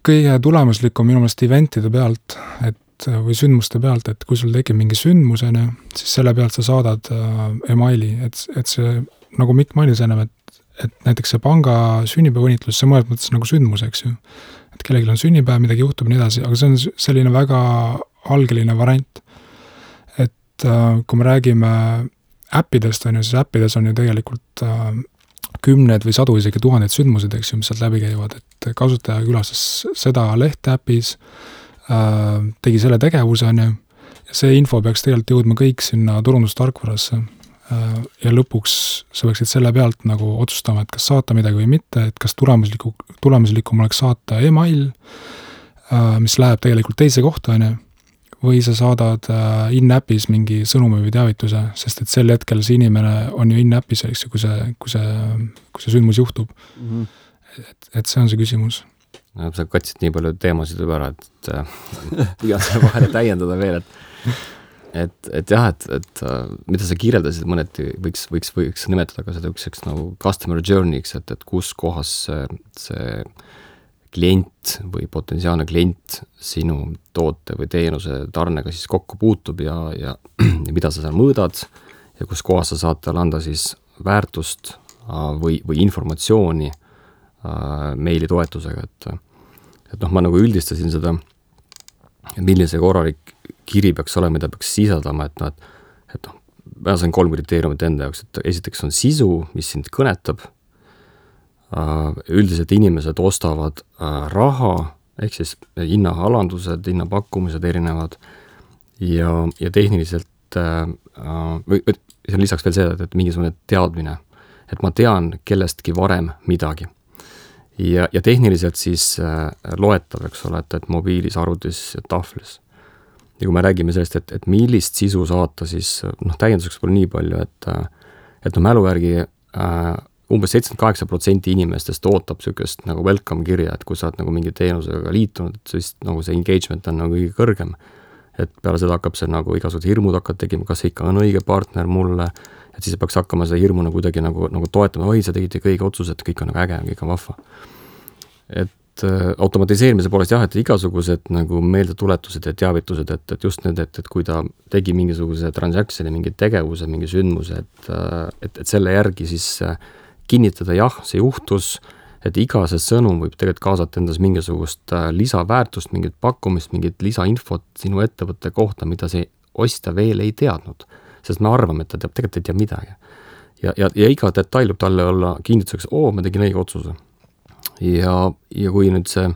kõige tulemuslikum minu meelest eventide pealt, või sündmuste pealt, et kui sul tekib mingi sündmusene, siis selle pealt sa saadad emaili, et see, nagu Mikk mainis ennem, et näiteks see panga sünnipäevõnitlus, see mõnes mõttes nagu sündmus, eks ju. Et kellelgi on sünnipäev, midagi juhtub nii edasi, aga see on selline väga algeline variant. Et kui me räägime äppidest, on ju, siis äppides on ju tegelikult 10 või 100 isegi 1000 sündmused, eks ju, mis sealt läbi käivad, et kasutaja külastas seda lehte äpis, tegi selle tegevuse, on ju, ja see info peaks tegelikult jõudma kõik sinna turundustarkvarasse ja lõpuks sa peaksid selle pealt nagu otsustama, et kas saata midagi või mitte, et kas tulemuslikum oleks saata email, mis läheb tegelikult teise kohta, on ju, või sa saadad in-appis mingi sõnumi või teavituse, sest et sel hetkel see inimene on ju in-appis, eks ju, kui see sündmus juhtub. Et see on see küsimus. No, sa katsid nii palju teemasid juba ära, et püüan selle vahele täiendada veel, et jah, et mida sa kirjeldasid mõneti, võiks nimetada ka seda üks nagu customer journey'ks, et kus kohas see klient või potentsiaalne klient sinu toote või teenuse tarnega siis kokku puutub ja mida sa seal mõõdad ja kus kohas sa saad talle anda siis väärtust või informatsiooni meili toetusega, et ma nagu üldistasin seda, millise korralik kiri peaks olema, mida peaks sisaldama, et ma sain 3 kriteeriumit enda jaoks, et esiteks on sisu, mis sind kõnetab, üldiselt inimesed ostavad raha, ehk siis hinnaalandused, hinnapakkumised erinevad ja tehniliselt või see on lisaks veel see, et mingisugune teadmine, et ma tean kellestki varem midagi. Ja tehniliselt siis loetav, eks ole, et mobiilis, arvutis ja tahvlis. Ja kui me räägime sellest, et millist sisu saata, siis täienduseks pole nii palju, et mälu järgi umbes 78% inimestest ootab sellist nagu welcome kirja, et kui sa oled nagu mingi teenusega liitunud, et siis nagu see engagement on nagu kõige kõrgem. Et peale seda hakkab see nagu igasugused hirmud hakkad tegema, kas see ikka on õige partner mulle, et siis peaks hakkama seda hirmu nagu kuidagi nagu toetama, oi, sa tegid kõige otsused, kõik on nagu äge, kõik on vahva. Et automatiseerimise poolest jah, et igasugused nagu meeldetuletused ja teavitused, et just need, et kui ta tegi mingisuguse transactioni, mingi tegevuse, mingi sündmuse, et selle järgi siis kinnitada, jah, see juhtus, et iga see sõnum võib tegelikult kaasata endas mingisugust lisaväärtust, mingit pakkumist, mingit lisainfot sinu ettevõtte kohta, mida see ostja veel ei teadnud. Sest me arvame, et ta teab, tegelikult ei tea midagi. Ja iga detail võib talle olla kinnituseks, ma tegin õige otsuse. Ja kui nüüd see,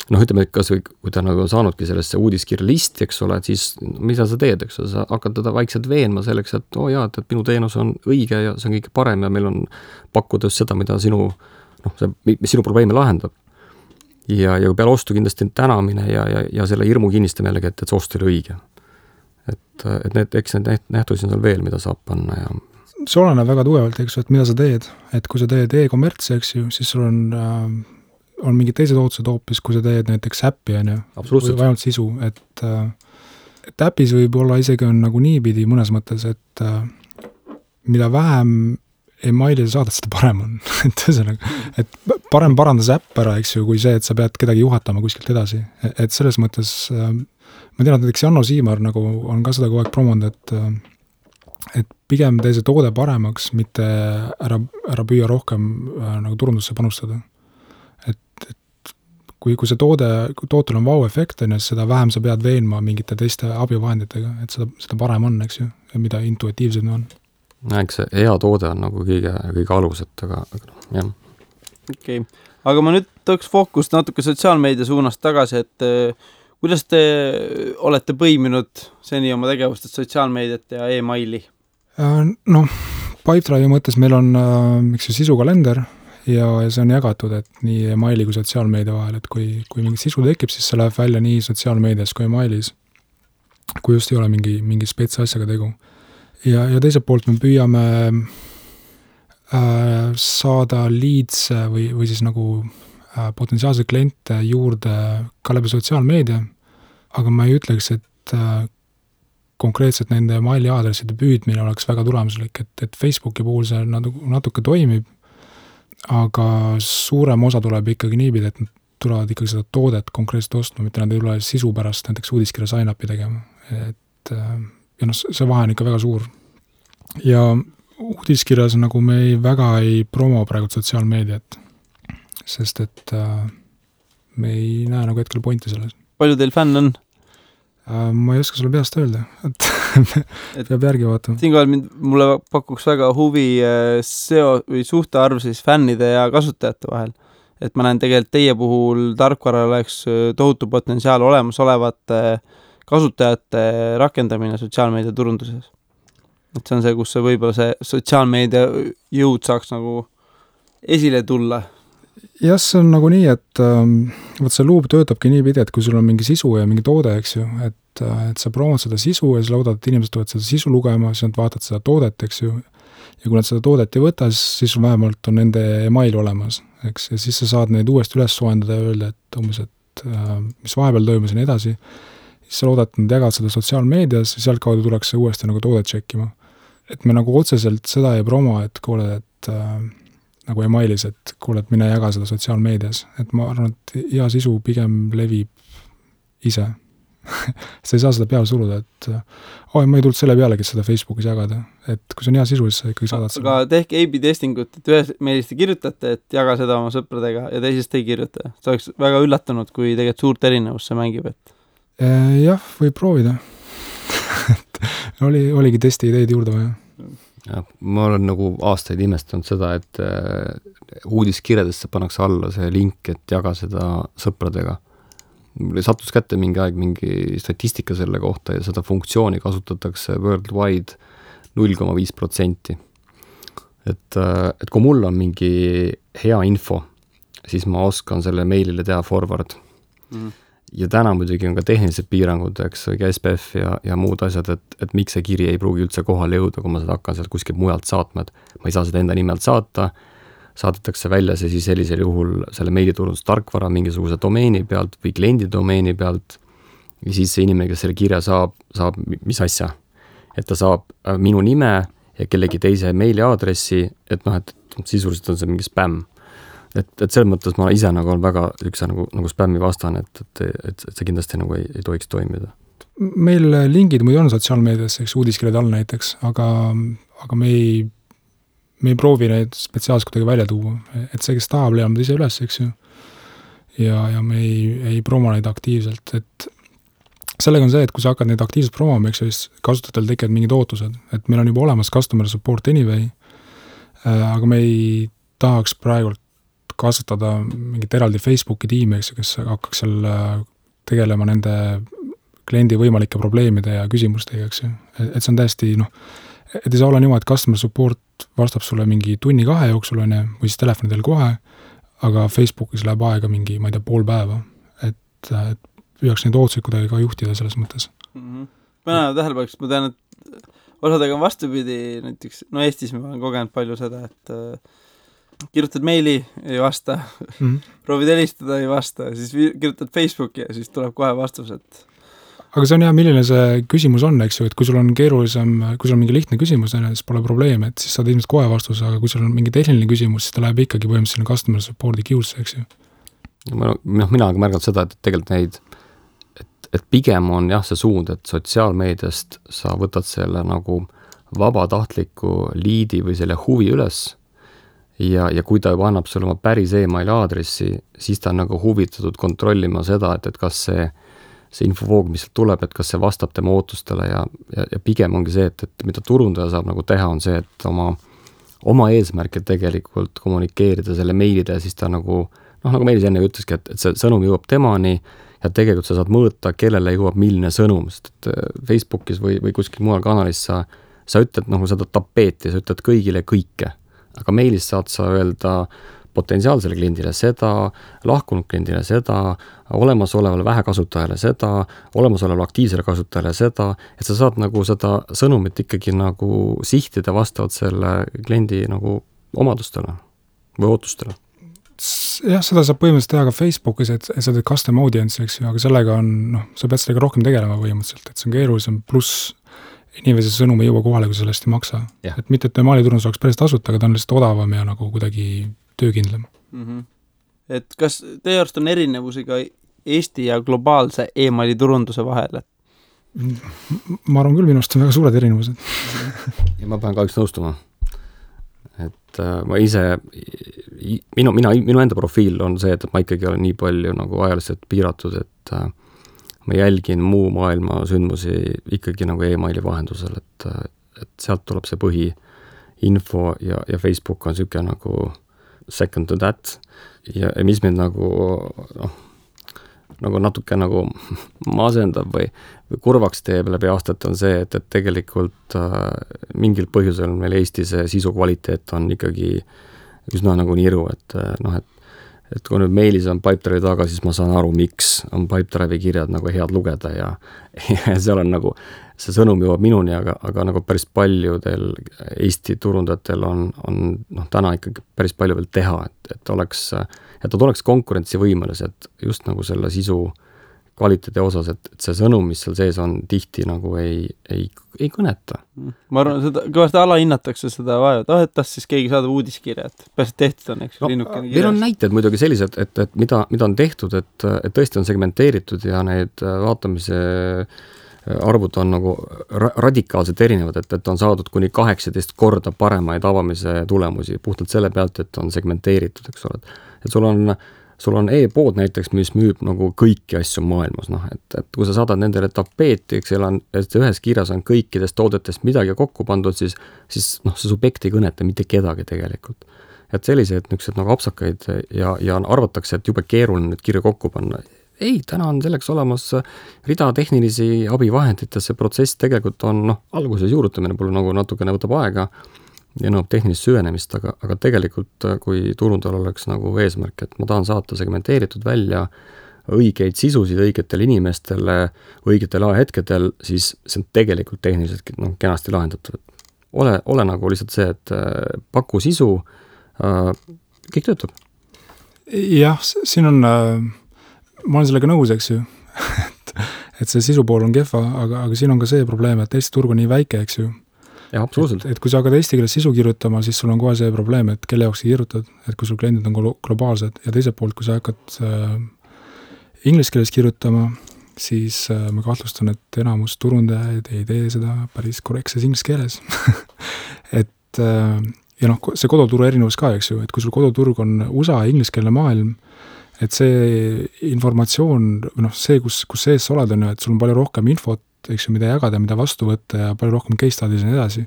ütleme, et kas või, kui ta nagu saanudki sellesse uudiskirja listi, eks ole, et siis mida sa teed, eks ole, sa hakkad teda vaikselt veenma selleks, et et minu teenus on õige ja see on kõik parem ja meil on pakkuda just seda, mida sinu probleeme lahendab. Ja kui peale ostu kindlasti tänamine ja selle hirmu kinnistamine jällegi, et see ostu oli õige. Et eks need nähtusi on seal veel, mida saab panna ja see oleneb väga tugevalt, eks ju, et mida sa teed. Et kui sa teed e-kommertsi, eks ju, siis sul on mingid teised ootused hoopis, kui sa teed näiteks äppi, või ainult sisu. Et äpis võib olla isegi on nagu niipidi mõnes mõttes, et mida vähem emaili sa saadad, seda parem on. et parem paranda see äpp ära, eks ju, kui see, et sa pead kedagi juhatama kuskilt edasi. Et selles mõttes, ma tean, et näiteks Janno Siimar nagu on ka seda kogu aeg promonud, et pigem tee see toode paremaks, mitte ära püüa rohkem nagu turundusse panustada. Et kui see tootel on vau-efekt, siis seda vähem sa pead veenma mingite teiste abivahenditega, et seda parem on, eks ju, ja mida intuitiivsem on. Eks see hea toode on nagu kõige aluset, aga jah. Okei. Aga ma nüüd tooks fookust natuke sotsiaalmeedia suunast tagasi, et kuidas te olete põiminud seni oma tegevustest sotsiaalmeediat ja e-maili? Pipedrive'i mõttes meil on sisukalender ja see on jagatud, et nii e-maili kui sotsiaalmeedia vahel, et kui mingi sisu tekib, siis see läheb välja nii sotsiaalmeedias kui e-mailis, kui just ei ole mingi spets asjaga tegu. Ja teiselt poolt me püüame saada leads või siis nagu potentsiaalseid kliente juurde ka läbi sotsiaalmeedia, aga ma ei ütleks, et konkreetselt nende maili aadresside püüdmine oleks väga tulemuslik, et Facebooki puhul see natuke toimib, aga suurem osa tuleb ikkagi niipidi, et nad tulevad ikkagi seda toodet konkreetselt ostma, mitte nad ei tule sisu pärast näiteks uudiskirja sign-upi tegema. Ja see vahe on ikka väga suur. Ja uudiskirjas nagu me väga ei promo praegu sotsiaalmeediat, sest et me ei näe nagu hetkel pointi selles. Palju teil fänn on? Ma ei oska sulle peast öelda, et peab järgi vaatama. Siinkohal mulle pakuks väga huvi või suhtearv siis fännide ja kasutajate vahel. Et ma näen tegelikult teie puhul tarkvaral oleks tohutu potentsiaal olemasolevate kasutajate rakendamine sotsiaalmeedia turunduses. Et see on see, kus võib-olla see sotsiaalmeedia jõud saaks nagu esile tulla. Jah, see on nagu nii, et see luub töötabki nii pidi, et kui sul on mingi sisu ja mingi toode, eks ju, et sa promod seda sisu ja siis loodad, et inimesed tulevad seda sisu lugema, siis nad vaatad seda toodet, eks ju, ja kui nad seda toodet ei võta, siis vähemalt on nende email olemas, eks, ja siis sa saad neid uuesti üles soendada ja öelda, et umbes, et mis vahepeal toimus ja nii edasi, siis sa loodad, et nad jagavad seda sotsiaalmeedias ja sealt kaudu tuleks see uuesti nagu toodet tšekkima. Et me nagu otseselt seda ei promo, et kuule, et nagu emailis, et kuule, et mine jaga seda sotsiaalmeedias. Et ma arvan, et hea sisu pigem levib ise. Sa ei saa seda peale suruda, et ma ei tulnud selle pealegi seda Facebookis jagada. Et kui see on hea sisu, siis sa ikkagi saadad seda. Aga tehke A-B testingut, et ühes meilist te kirjutate, et jaga seda oma sõpradega ja teisest ei kirjuta. See oleks väga üllatunud, kui tegelikult suurt erinevust see mängib. Et... jah, võib proovida. oligi testi ideid juurde vaja. ma olen nagu aastaid imestanud seda, et uudiskirjadesse pannakse alla see link, et jaga seda sõpradega. Sattus kätte mingi aeg mingi statistika selle kohta ja seda funktsiooni kasutatakse worldwide 0,5%. Et kui mul on mingi hea info, siis ma oskan selle meilile teha forward. Ja täna muidugi on ka tehnilised piirangud, eks, SPF ja muud asjad, et miks see kiri ei pruugi üldse kohale jõuda, kui ma seda hakkan sealt kuskilt mujalt saatma, et ma ei saa seda enda nimelt saata, saadetakse välja see siis sellisel juhul selle meiliturundustarkvara mingisuguse domeeni pealt või kliendi domeeni pealt ja siis see inimene, kes selle kirja saab mis asja, et ta saab minu nime ja kellegi teise meiliaadressi, et sisuliselt on see mingi spämm. Et selles mõttes ma ise nagu on väga üks nagu spämmi vastan, et see kindlasti nagu ei tohiks toimida. Meil lingid muidu on sotsiaalmeedias, eks uudiskirjad all näiteks, aga me ei proovi neid spetsiaalselt kuidagi välja tuua. Et see, kes tahab, leiab ise üles, eks ju. Ja me ei promo neid aktiivselt. Et sellega on see, et kui sa hakkad neid aktiivselt promoma, eks ju, siis kasutajatel tekivad mingid ootused. Et meil on juba olemas customer support anyway, aga me ei tahaks praegult kasutada mingit eraldi Facebooki tiimi, kes hakkaks seal tegelema nende kliendi võimalike probleemide ja küsimustega, eks ju. Et see on täiesti, et ei saa olla niimoodi, et customer support vastab sulle mingi 1-2 jooksul, või siis telefonidel kohe, aga Facebookis läheb aega mingi, ma ei tea, pool päeva. Et püüaks neid ootuseid kuidagi ka juhtida selles mõttes. Ma tähelepaneks, ma tean, et osadega on vastupidi, näiteks, Eestis ma olen kogenud palju seda, et kirjutad meili, ei vasta, proovid helistada, ei vasta, siis kirjutad Facebooki ja siis tuleb kohe vastus, et aga see on hea, milline see küsimus on, eks ju, et kui sul on keerulisem, kui sul on mingi lihtne küsimus, siis pole probleemi, et siis saad ilmselt kohe vastuse, aga kui sul on mingi tehniline küsimus, siis ta läheb ikkagi põhimõtteliselt customer support'i queue'sse, eks ju. Mina olen märganud seda, et tegelikult neid, et pigem on jah see suund, et sotsiaalmeediast sa võtad selle nagu vabatahtliku liidi või selle huvi üles ja kui ta juba annab sulle oma päris emaili aadressi, siis ta on nagu huvitatud kontrollima seda, et kas see infovoog, mis tuleb, et kas see vastab tema ootustele ja pigem ongi see, et mida turundaja saab nagu teha, on see, et oma eesmärke tegelikult kommunikeerida selle meilide ja siis ta nagu Meelis enne ütleski, et see sõnum jõuab temani ja tegelikult sa saad mõõta, kellele jõuab milline sõnum, sest et Facebookis või kuskil mujal kanalis sa ütled seda tapeeti, sa ütled kõigile kõike. Aga meilis saad sa öelda potentsiaalsele kliendile seda, lahkunud kliendile seda, olemasolevale vähekasutajale seda, olemasolevale aktiivsele kasutajale seda, et sa saad nagu seda sõnumit ikkagi nagu sihtida vastavalt selle kliendi nagu omadustele või ootustele. Jah, seda saab põhimõtteliselt teha ka Facebookis, et sa teed custom audience, eks ju, aga sellega on, sa pead sellega rohkem tegelema põhimõtteliselt, et see on keerulisem, pluss inimese sõnum ei jõua kohale, kui sellest ei maksa. Ja. Et mitte, et maaliturundus oleks päris tasuta, aga ta on lihtsalt odavam ja nagu kuidagi töökindlam. Et kas teie arust on erinevusi ka Eesti ja globaalse e-mailiturunduse vahel? Ma arvan küll, minu arust on väga suured erinevused. Ja ma pean kahjuks nõustuma. Et ma ise, minu enda profiil on see, et ma ikkagi olen nii palju nagu ajaliselt piiratud, et ma jälgin muu maailma sündmusi ikkagi nagu e-maili vahendusel, et sealt tuleb see põhiinfo ja Facebook on siuke nagu second to that ja mis mind nagu natuke nagu masendab või kurvaks teeb läbi aastate on see, et tegelikult mingil põhjusel meil Eestis sisu kvaliteet on ikkagi üsna nagu niru, et kui nüüd meilis on Pipedrive'i taga, siis ma saan aru, miks on Pipedrive'i kirjad nagu head lugeda ja seal on nagu, see sõnum jõuab minuni, aga nagu päris paljudel Eesti turundajatel on täna ikkagi päris palju veel teha, et nad oleks konkurentsivõimelised just nagu selle sisu kvaliteedi osas, et see sõnum, mis seal sees on, tihti nagu ei kõneta. Ma arvan, seda kõvasti alahinnatakse seda vaja, et tas siis keegi saadab uudiskirja, et pärast tehtud on, eks linnukene kirjas. Meil on näited muidugi sellised, et mida on tehtud, et tõesti on segmenteeritud ja need vaatamise arvud on nagu radikaalselt erinevad, et on saadud kuni 18 korda paremaid avamise tulemusi puhtalt selle pealt, et on segmenteeritud, eks ole. Et sul on sul on e-pood näiteks, mis müüb nagu kõiki asju maailmas, noh, et kui sa saadad nendele tapeeti, eks et ühes kirjas on kõikidest toodetest midagi kokku pandud, siis noh, see subjekt ei kõneta mitte kedagi tegelikult. Et sellised niisugused nagu apsakaid ja arvatakse, et jube keeruline nüüd kirja kokku panna. Ei, täna on selleks olemas rida tehnilisi abivahendid ja see protsess tegelikult on, noh, alguses juurutamine pole nagu natukene võtab aega ja nõuab tehnilist süvenemist, aga tegelikult kui turundajal oleks nagu eesmärk, et ma tahan saata segmenteeritud välja õigeid sisusid õigetele inimestele õigetel ajahetkedel, siis see on tegelikult tehniliselt kenasti lahendatud. Ole nagu lihtsalt see, et paku sisu, kõik töötab. Jah, siin on, ma olen sellega nõus, eks ju, et see sisupool on kehva, aga siin on ka see probleem, et Eesti turg on nii väike, eks ju. Ja, absoluutselt. Et kui sa hakkad eesti keeles sisu kirjutama, siis sul on kohe see probleem, et kelle jaoks sa kirjutad, et kui sul kliendid on globaalsed ja teiselt poolt, kui sa hakkad inglise keeles kirjutama, siis ma kahtlustan, et enamus turundajaid ei tee seda päris korrektses inglise keeles. et ja noh, see koduturu erinevus ka, eks ju, et kui sul koduturg on USA ingliskeelne maailm, et see informatsioon, noh, see, kus sees sa oled, on ju, et sul on palju rohkem infot, eks ju, mida jagada, mida vastu võtta ja palju rohkem case studies ja nii edasi,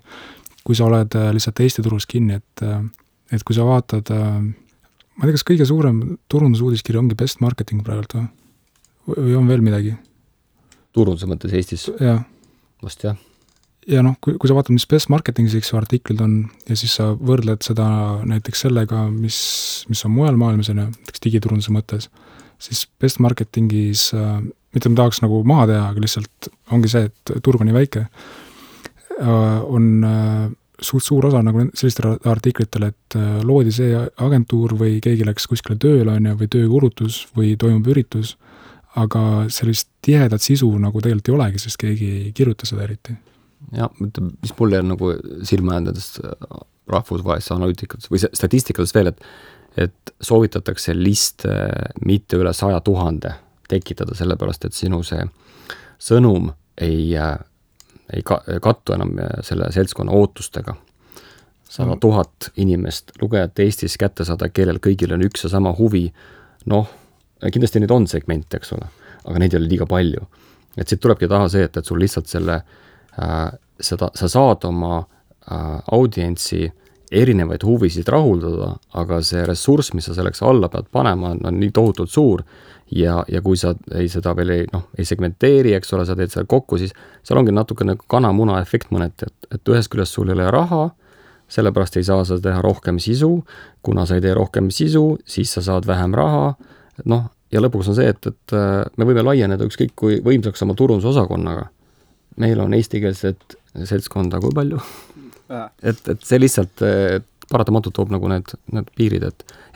kui sa oled lihtsalt Eesti turus kinni, et kui sa vaatad, ma ei tea, kas kõige suurem turundusuudiskiri ongi best marketing praegult või on veel midagi? Turunduse mõttes Eestis? Jah. Vast jah. Ja noh, kui sa vaatad, mis best marketingis artiklid on ja siis sa võrdled seda näiteks sellega, mis on mujal maailmas, näiteks digiturunduse mõttes, siis best marketingis mitte ma tahaks nagu maha teha, aga lihtsalt ongi see, et turg on nii väike, on suur osa nagu sellistele artiklitele, et loodi see agentuur või keegi läks kuskile tööle või töökuulutus või toimub üritus, aga sellist tihedat sisu nagu tegelikult ei olegi, sest keegi ei kirjuta seda eriti. Ja, mis mulle on nagu silma jäändadest rahvusvahelisse analüütikatest või statistikades veel, et soovitatakse liste mitte üle 100 000 tekitada sellepärast, et sinu see sõnum ei kattu enam selle seltskonna ootustega. 100 000 inimest lugejat Eestis kätte saada, kellel kõigil on üks ja sama huvi. Noh, kindlasti neid on segmente, eks ole, aga neid ei ole liiga palju. Et siit tulebki taha see, et sul lihtsalt sa saad oma audientsi erinevaid huvisid rahuldada, aga see ressurss, mis sa selleks alla pead panema, on nii tohutult suur ja kui sa seda veel ei segmenteeri, eks ole, sa teed seda kokku, siis seal ongi natukene kana-muna efekt mõneti, et ühest küljest sul ei ole raha, sellepärast ei saa sa teha rohkem sisu, kuna sa ei tee rohkem sisu, siis sa saad vähem raha, noh, ja lõpuks on see, et me võime laieneda ükskõik kui võimsaks oma turundusosakonnaga. Meil on eestikeelset seltskonda kui palju. Et see lihtsalt paratamatult toob nagu need piirid,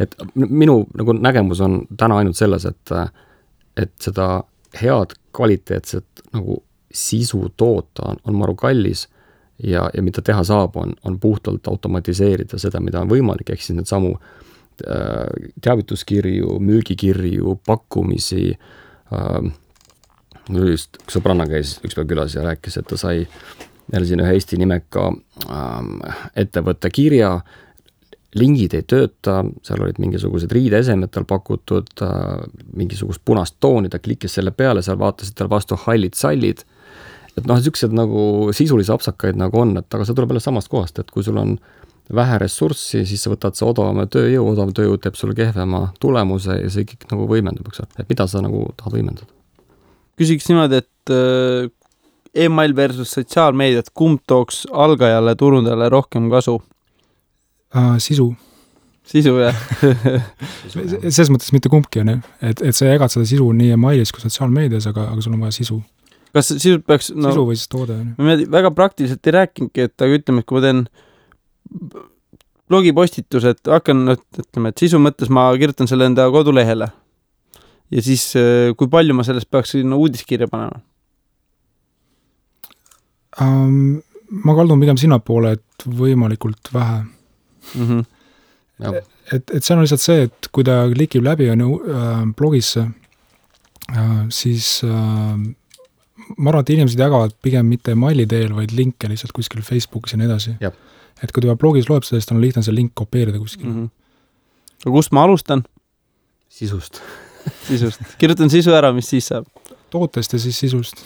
et minu nagu nägemus on täna ainult selles, et seda head kvaliteetset nagu sisu toota on maru kallis ja mida teha saab, on puhtalt automatiseerida seda, mida on võimalik, ehk siis need samu teavituskirju, müügikirju, pakkumisi, just üks sõbranna käis üks päev külas ja rääkis, et ta sai jälle siin ühe Eesti nimeka ettevõtte kirja, lingid ei tööta, seal olid mingisugused riideesemed tal pakutud, mingisugust punast tooni, ta klikkis selle peale, seal vaatasid tal vastu hallid sallid, et noh, niisugused nagu sisulisi apsakaid nagu on, et aga see tuleb jälle samast kohast, et kui sul on vähe ressurssi, siis sa võtad see odavam tööjõud teeb sulle kehvema tulemuse ja see kõik nagu võimendub, et mida sa nagu tahad võimendada? Küsiks niimoodi, et email versus sotsiaalmeediat, kumb tooks algajale turundajale rohkem kasu? Sisu. Sisu, jah. Selles mõttes mitte kumbki on, et sa jagad seda sisu nii emailis kui sotsiaalmeedias, aga sul on vaja sisu. Kas sisu peaks... sisu või siis toode? Ma väga praktiliselt ei rääkingi, et ütleme, et kui ma teen blogipostitused, ütleme, et sisu mõttes ma kirjutan selle enda kodulehele ja siis kui palju ma sellest peaks uudiskirja panema? Ma kaldun pigem sinnapoole, et võimalikult vähe. Et see on lihtsalt see, et kui ta klikib läbi blogisse, siis ma arvan, et inimesed jagavad pigem mitte maili teel, vaid linke lihtsalt kuskil Facebookis ja nii edasi. Et kui ta blogis loeb seda, siis on lihtne see link kopeerida kuskil. Aga kust ma alustan? Sisust. Kirjutan sisu ära, mis siis saab? Tootest ja siis sisust.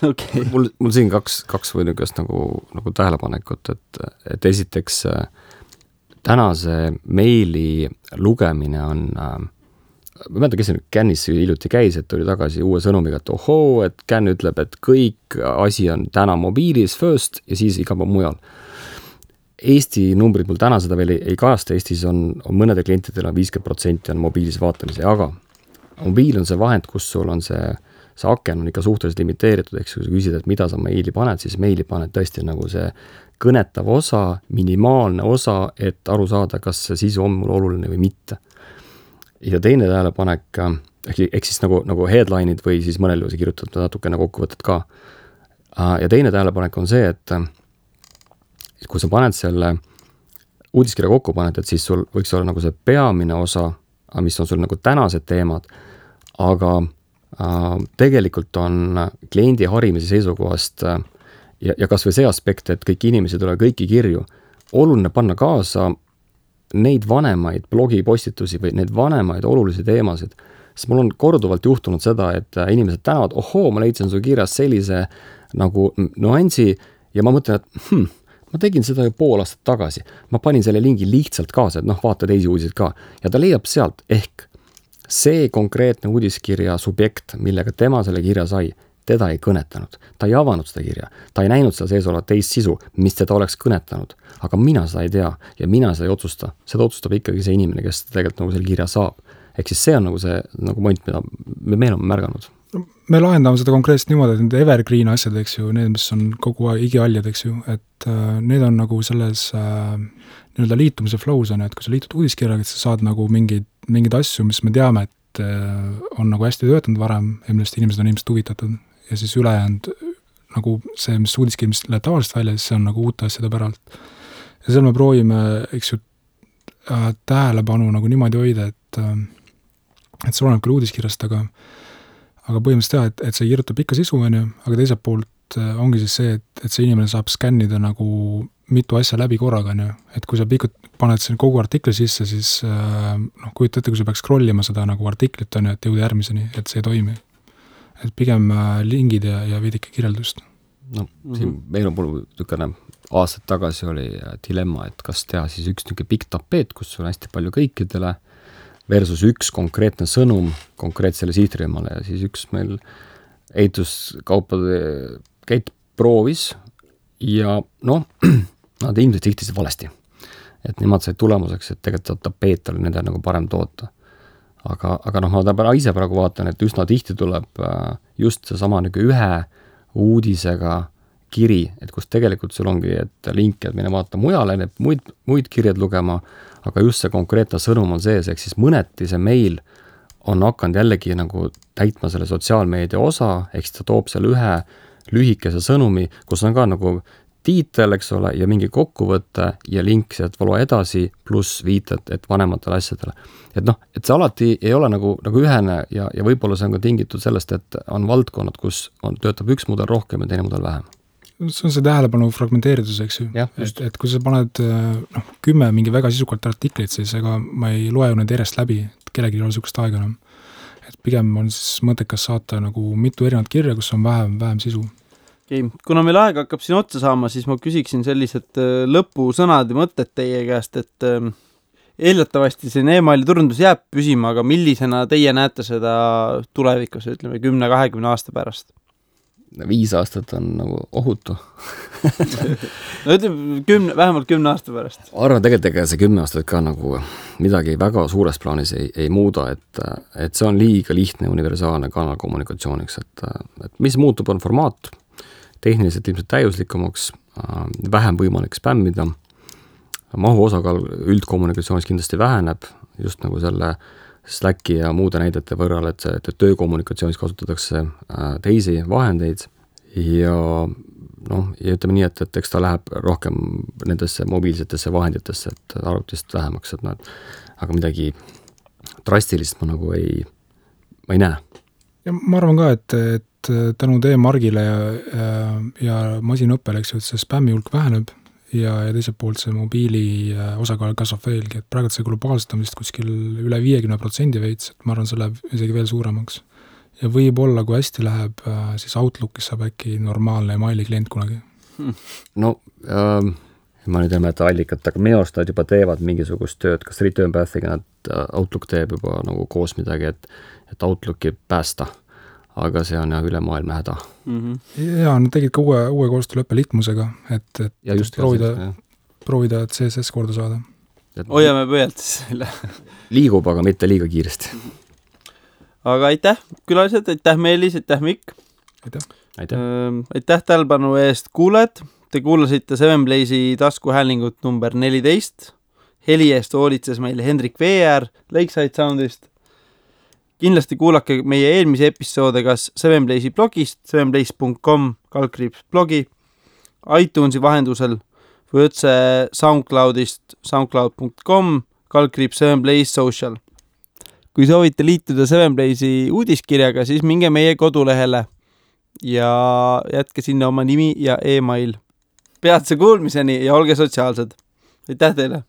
Okay. Mul siin kaks või niisugust nagu tähelepanekut, et esiteks tänase meili lugemine on, ma mõelda, kes Cannis hiljuti käis, et tuli tagasi uue sõnumiga, et ohoo, et Can ütleb, et kõik asi on täna mobiilis first ja siis iga mujal. Eesti numbrid mul täna seda veel ei kajasta, Eestis on mõnede klientidel on 50% on mobiilis vaatamise, aga mobiil on see vahend, kus sul on see aken on ikka suhteliselt limiteeritud, eks kui sa küsid, et mida sa meili paned, siis meili paned tõesti nagu see kõnetav osa, minimaalne osa, et aru saada, kas see sisu on mul oluline või mitte. Ja teine tähelepanek, ehk siis nagu headline'id või siis mõnel juhul kirjutatud natukene kokkuvõtted ka. Ja teine tähelepanek on see, et kui sa paned selle uudiskirja kokku paned, et siis sul võiks olla nagu see peamine osa, mis on sul nagu tänased teemad, aga tegelikult on kliendi harimise seisukohast ja kas või see aspekt, et kõik inimesed ole kõiki kirju, oluline panna kaasa neid vanemaid blogipostitusi või neid vanemaid olulisi teemasid, sest mul on korduvalt juhtunud seda, et inimesed tänavad, ohoo, ma leidsin su kirjas sellise nagu nuansi ja ma mõtlen, et ma tegin seda ju pool aastat tagasi, ma panin selle lingi lihtsalt kaasa, et vaata teisi uudiseid ka ja ta leiab sealt ehk see konkreetne uudiskirja subjekt, millega tema selle kirja sai, teda ei kõnetanud. Ta ei avanud seda kirja. Ta ei näinud seda sees olevat teist sisu, mis teda oleks kõnetanud. Aga mina seda ei tea ja mina seda ei otsusta. Seda otsustab ikkagi see inimene, kes tegelikult nagu selle kirja saab. Ehk siis see on nagu see nagu point, mida me oleme märganud. Me lahendame seda konkreetselt niimoodi, et need evergreen asjad, eks ju, need, mis on kogu aeg igialjad, eks ju, et need on nagu selles nii-öelda liitumise flows on, et kui sa liitud uudiskirjaga, et sa saad nagu mingid asju, mis me teame, et on nagu hästi töötanud varem ja millest inimesed on ilmselt huvitatud ja siis ülejäänud nagu see, mis uudiskirja, mis läheb tavaliselt välja, siis see on nagu uute asjade päralt. Ja seal me proovime, eks ju, tähelepanu nagu niimoodi hoida, et see oleneb küll uudiskirjast, aga põhimõtteliselt teha, et see kirjutab ikka sisu, aga teiselt poolt ongi siis see, et see inimene saab skännida nagu mitu asja läbi korraga, et kui sa paned selle kogu artikli sisse, siis kujuta ette, kui sa peaks scrollima seda nagu artiklit, et jõuda järgmiseni, et see ei toimi. Et pigem lingid ja veidike kirjeldust. Siin meil on niisugune aastad tagasi oli dilemma, et kas teha siis üks niisugune pikk tapeet, kus on hästi palju kõikidele, versus üks konkreetne sõnum konkreetsele sihtrühmale ja siis üks meil ehituskaupade käit proovis ja nad ilmselt sihtisid valesti. Et nemad said tulemuseks, et tegelikult tapeet oli nende nagu parem toota. Aga ma ise praegu vaatan, et üsna tihti tuleb just see sama nagu ühe uudisega kiri, et kus tegelikult sul ongi, et link, et mine vaata mujale, need muid kirjad lugema, aga just see konkreetne sõnum on sees, ehk siis mõneti see meil on hakanud jällegi nagu täitma selle sotsiaalmeedia osa, ehk siis ta toob selle ühe lühikese sõnumi, kus on ka nagu tiitel, eks ole, ja mingi kokkuvõte ja link sealt valua edasi, pluss viited, et vanematele asjadele. Et see alati ei ole nagu ühene ja võib-olla see on ka tingitud sellest, et on valdkonnad, kus töötab üks mudel rohkem ja teine mudel vähem. See on see tähelepanu fragmenteeritus, eks ju. Et kui sa paned 10 mingi väga sisukalt artiklit, siis ega ma ei loe ju need järjest läbi, et kellegi ei ole sukust aega enam. Et pigem on siis mõttekas saata nagu mitu erinevat kirja, kus on vähem sisu. Okay. Kuna meil aeg hakkab siin otsa saama, siis ma küsiksin sellised lõpusõnad ja mõtted teie käest, et eeldatavasti see e-maili turundus jääb püsima, aga millisena teie näete seda tulevikus, ütleme 10-20 aasta pärast? 5 aastat on nagu ohutu. No ütleme vähemalt 10 aasta pärast. Arvan tegelikult see 10 aastat ka nagu midagi väga suures plaanis ei muuda, et see on liiga lihtne universaalne kanal kommunikatsiooniks, et mis muutub on formaat, tehniliselt ilmselt täiuslikumaks, vähem võimalik spämmida, mahu osakaal üldkommunikatsioonis kindlasti väheneb, just nagu selle Slacki ja muude näidete võrral, et töökommunikatsioonis kasutatakse teisi vahendeid ja ütleme nii, et eks ta läheb rohkem nendesse mobiilsetesse vahenditesse, et arvutist vähemaks, aga midagi drastilist ma nagu ei näe. Ja ma arvan ka, et tänu teie margile ja masinõppele, eks ju, et see spämmi hulk väheneb ja teiselt poolt see mobiili osakaal kasvab veelgi, et praegu see globaalselt on vist kuskil üle 50% veits, et ma arvan, see läheb isegi veel suuremaks. Ja võib-olla, kui hästi läheb, siis Outlookis saab äkki normaalne emaili klient kunagi. No ma nüüd ei mäleta allikat, aga minu arust nad juba teevad mingisugust tööd, kas Return Pathiga nad Outlook teeb juba nagu koos midagi, et Outlooki päästa. Aga see on üle maailma häda. Ja nad tegid ka uue koostööleppe Litmusega, et ja just proovida CSS korda saada. Hoiame pöölt siis selle. Liigub, aga mitte liiga kiiresti. Aga aitäh külalised, aitäh Meelis, aitäh Mikk. Aitäh tähelepanu eest kuulajad. Te kuulasite Seven Blaze'i taskuhäälingut number 14. Heli eest hoolitses meil Hendrik Veer Lakeside Soundist. Kindlasti kuulake meie eelmise episoode kas Seven Blaze'i blogist, sevenblaze.com/blogi, iTunesi vahendusel või otse SoundCloudist, soundcloud.com/Seven Blaze Social. Kui soovite liituda Seven Blaze'i uudiskirjaga, siis minge meie kodulehele ja jätke sinna oma nimi ja e-mail. Peatse kuulmiseni ja olge sotsiaalsed. Aitäh teile!